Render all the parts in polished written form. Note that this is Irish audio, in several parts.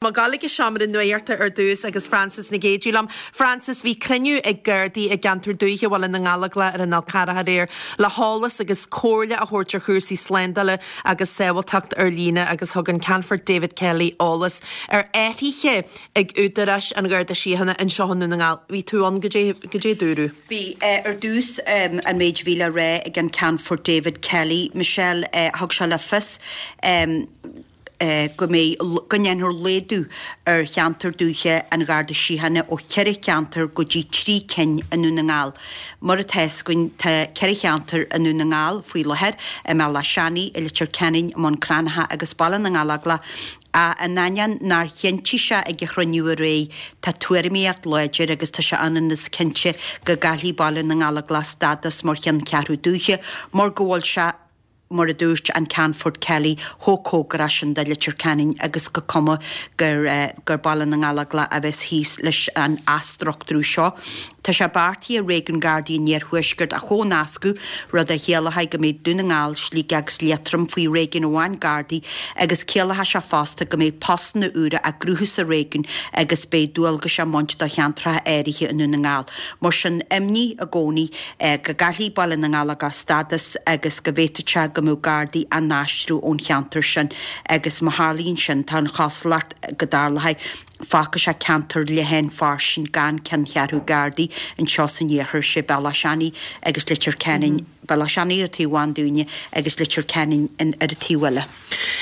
Mé ag gabháil ag an seomra nuachta ar dtús agus Frances Nic Géadaigh liom. Frances, bhí cruinniú ag Gardaí i gceantar dúiche Bhaile na nGallóglach ar an Fhál Carrach aréir le heolas agus comhairle a thabhairt ar chúrsaí slándála agus sábháilteacht ar líne agus thug an Ceannfort David Kelly eolas ar athruithe ag údaráis an Gharda Síochána anseo i nDún na nGall. Bhí tú ann, goidé, goidé a dúradh? Bhí. Ar dtús, an méid a bhí le rá ag an Ceannfort David Kelly, Michelle, thug sé le fios, go mbeidh, go ndéanfar laghdú ar cheantar dúiche an Gharda Síochána ó cheithre cheantar go dtí 3 cinn i nDún na nGall. Mar atá fhios againn tá ceithre cheantar i nDún na nGall faoi láthair, i mBealach Seanaidh, i Leitir Ceanainn, i mBun Cranncha agus Baile na nGallóglach, ach in ainneoin nár chinntigh sé ag an chruinniú aréir, tá tuairimíocht láidir agus tá sé ionann is cinnte go gcaillfidh Baile na nGallóglach stádas mar cheanncheathrú dúiche mar go bhfuil sé mar a dúirt an Ceannfort Kelly, chomh cóngarach sin do Leitir Ceanainn agus gur cuma gur gur Baile na nGallóglach a bheas thíos leis an athstruchtúrú seo. Tá sé beartaithe Réigiún Gardaí an Iarthuaiscirt a chomhnascadh, rud a chiallóidh go mbeidh Dún na nGall, Sligeach agus Liatroim faoi réigiún amháin Gardaí agus ciallóidh sé fosta go mbeidh postanna úra á gcruthú sa réigiún agus beidh dualgais á mbaint do cheantracha áirithe i nDún na nGall. Mar sin, imní i gcónaí go gcaillfidh Baile na nGallóglach stádas agus go bhféadfadh sé go mbeadh Gardaí á n-aistriú ón cheantar sin agus má tharlaíonn sin, tá an chosúlacht go dtarlóidh, fágfaidh sé ceantar leathan fairsing gan ceanncheathrú Gardaí anseo san iarthar, sé Bealach Seanaidh agus Leitir Ceanainn, Bealach Seanaidh ar an taobh amháin dúinne agus Leitir Ceanainn ar an taobh eile.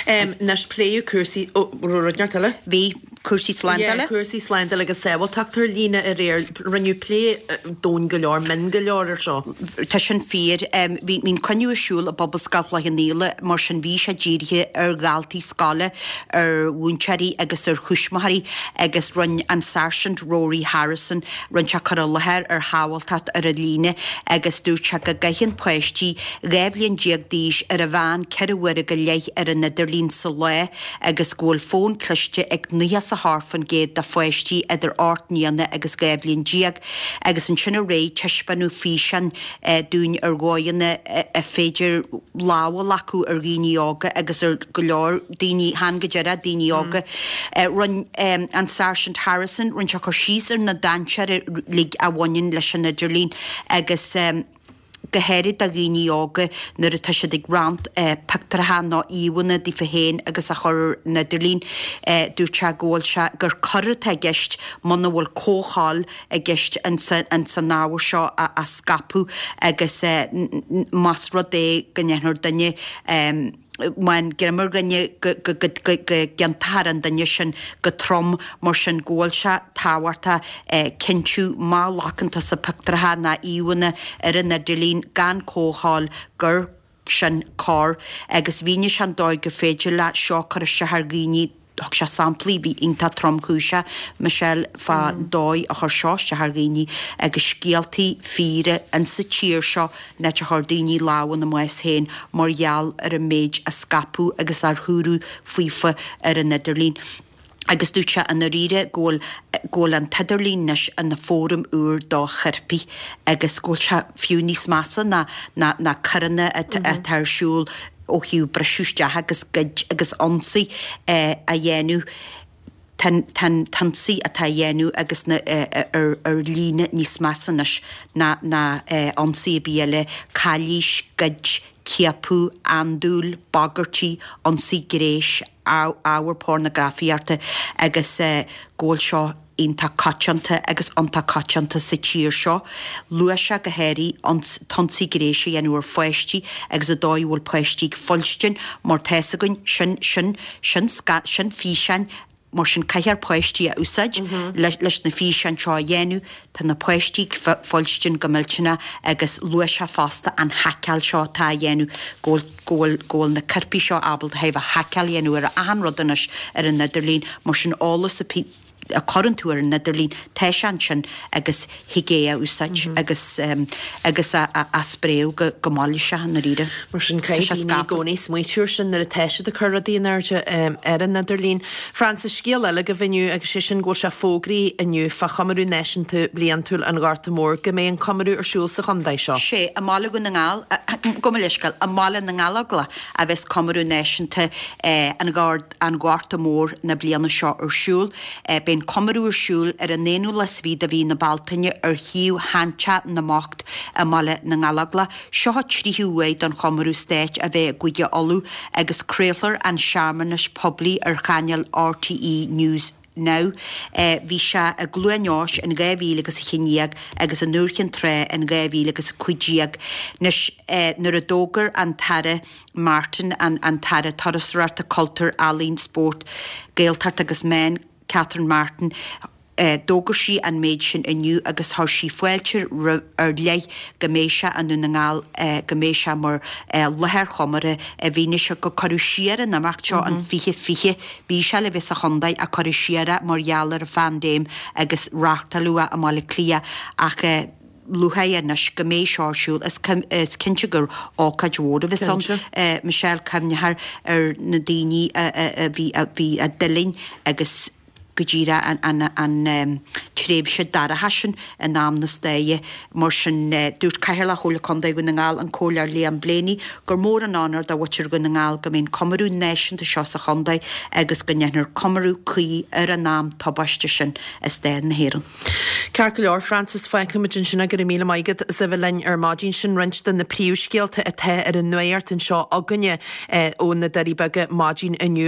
Anois pléadh cúrsaí, ó, raibh rud inteacht eile? Bhí. Cúrsaí slándála? Yeah, cúrsaí slándála agus sábháilteacht ar líne aréir. Rinneadh plé domhain go leor, mion go leor ar seo. Tá sin fíor. Bhí an cruinniú ar siúl i bPobalscoil Chloich Cheann Fhaola, mar sin bhí sé dírithe ar dhaltaí scoile, ar mhúinteoirí agus ar thuismitheoirí agus rinne an Sáirsint Rory Harrison, rinne sé cur i láthair ar shábháilteacht ar an líne agus dúirt sé go gcaitheann páistí 12 bhliain d'aois ar an mheán ceithre huaire go leith ar an idirlíon sa lá agus go bhfuil fón cliste ag 98% de pháistí idir 8 mbliana agus 12 bhliain. Agus ansin aréir taispeánadh físeán dúinn ar dhóigheanna ar féidir lámh a ghlacadh ar dhaoine óga agus ar go leor daoine, chan go díreach daoine óga. Rinne an Sáirsint Harrison, rinne sé cur síos ar na dainséir uilig a bhaineann leis an idirlíon agus. go háirid do dhaoine óga nuair atá siad ag roinnt pictiúracha nó íomhánna daofa féin agus a chur ar an idirlíon. Dúirt sé go bhfuil sé, gur coir atá i gceist muna bhfuil comhthoil i gceist ins an ábhar seo a scaipeadh agus más rud é go ndéanfar duine, má fhaigheann greim ar dhuine go gciontófar an duine sin go trom mar sin go bhfuil sé tábhachtach cinntiú má ghlacann tusa pictiúracha ná íomhánna ar an idirlíon gan comhthoil gur sin coir agus mhínigh sé an dóigh gur féidir le seo cur isteach ar dhaoine Thug sé samplaí, bhí iontach tromchúiseach, Michelle, fá dóigh a chuir seo isteach ar dhaoine agus scéaltaí fíora insa tír seo an áit a chuir daoine lámh ina mbás féin mar gheall ar an méid a scaipeadh agus ar dúradh faofa ar an idirlíon. Agus dúirt sé i ndáiríre go bhfuil go bhfuil an t-idirlíon anois ina fóram úr do choirpigh agus go bhfuil sé fiú níos measa ná ná ná coireanna atá ar siúl ó thaobh briseadh isteach agus goid agus ionsaí a dhéanamh, tá an t-ionsaí atá á dhéanamh agus na ar líne níos measa anois ná ná ionsaí ar bith eile, calaois, goid, ciapadh, andúil, bagairtí, ionsaí gnéis, ábhar pornagrafaíochta agus go bhfuil seo iontach coitianta agus iontach coitianta sa tír seo. Luaigh sé go háirithe an t-ionsaí gnéis a dhéanamh ar pháistí agus an dóigh a bhfuil páistí ag foilstin mar tá fhios againn sin, sin, sin, sin físeáin mar sin caithfear páistí a úsáid leis na físeáin seo a dhéanamh. Tá na páistí ag foilstin go millteanach agus luaigh sé fosta an haiceáil seo atá á dhéanamh go bhfuil go bhfuil go bhfuil na coirpigh seo ábalta a haiceáil a dhéanamh ar achan rud anois ar an idirlíon mar sin eolas a. a chuireann tú ar an idirlíon, tá sé ansin agus thig é a úsáid agus agus a spréadh go go mall sé i ndáiríre. Mar sin caithfidh daoine i gcónaí smaoitiú ar sin nuair atá siad ag cur rudaí in airde ar an idirlíon. Frances, scéal eile agaibh inniu agus sé sin go bhfuil sé fógraithe inniu fá chomóradh náisiúnta bliantúil an Ghorta Mhóir go mbeidh an comóradh ar siúl sa chontae seo. Sé, i mBaile Dhún na nGall, gabh mo leithscéal, i mBaile na nGallóglach a bheas comóradh náisiúnta an an Ghorta Mhóir na bliana seo ar siúl. Beidh an comóradh ar siúl ar an aonú lá is fiche de mhí na Bealtaine ar shuíomh Sheanteach na mBocht i mBaile na nGallóglach. Seo an tríú huair don chomóradh stáit a bheith i gCúige Uladh agus craolfar an searmanas poiblí ar chainéal RTÉ News Now. Bhí sé i gCluain Eois in 2000 agus 11 agus i nDúiche Chinn Trá in 2015. Anois nuair a d'fhógair an tAire Martin, an tAire Turasóireachta, Cultúir, Ealaíon, Spóirt, Gaeltacht agus Meán, Catherine Martin, D'fhógair sí an méid sin inniu agus chuir sí fáilte ar leith go mbeidh sé i nDún na nGall, go mbeidh sé mar láthair chomórtha i bhfianaise gur cuireadh siar an imeacht seo in 2020. Bhí sé le bheith sa chontae ach cuireadh siar é mar gheall ar an phaindéim agus reáchtáladh é i mBaile Átha Cliath ach lúcháir anois go mbeidh seo ar siúl. Is cinnte gur ócáid mhór a bheas ann, Michelle, cuimhneofar ar na daoine a bhí a d'fhulaing agus go díreach an tréimhse dorcha sin in am na staire. Mar sin, dúirt Cathaoirleach Chomhairle Contae Dhún na nGall, an Comhairleoir Liam Blaney, gur mór an onóir do mhuintir Dhún na nGall go mbeidh an comóradh náisiúnta seo sa chontae agus go ndéanfar comóradh cuí ar an am tubaiste sin i stair na hÉireann. Ceart go leor, Frances, fágfaimid ansin é. Go raibh míle maith agat as a bheith linn ar maidin. Sin roinnt de na príomhscéalta atá ar an nuacht anseo againne ó na Doirí Beaga maidin inniu.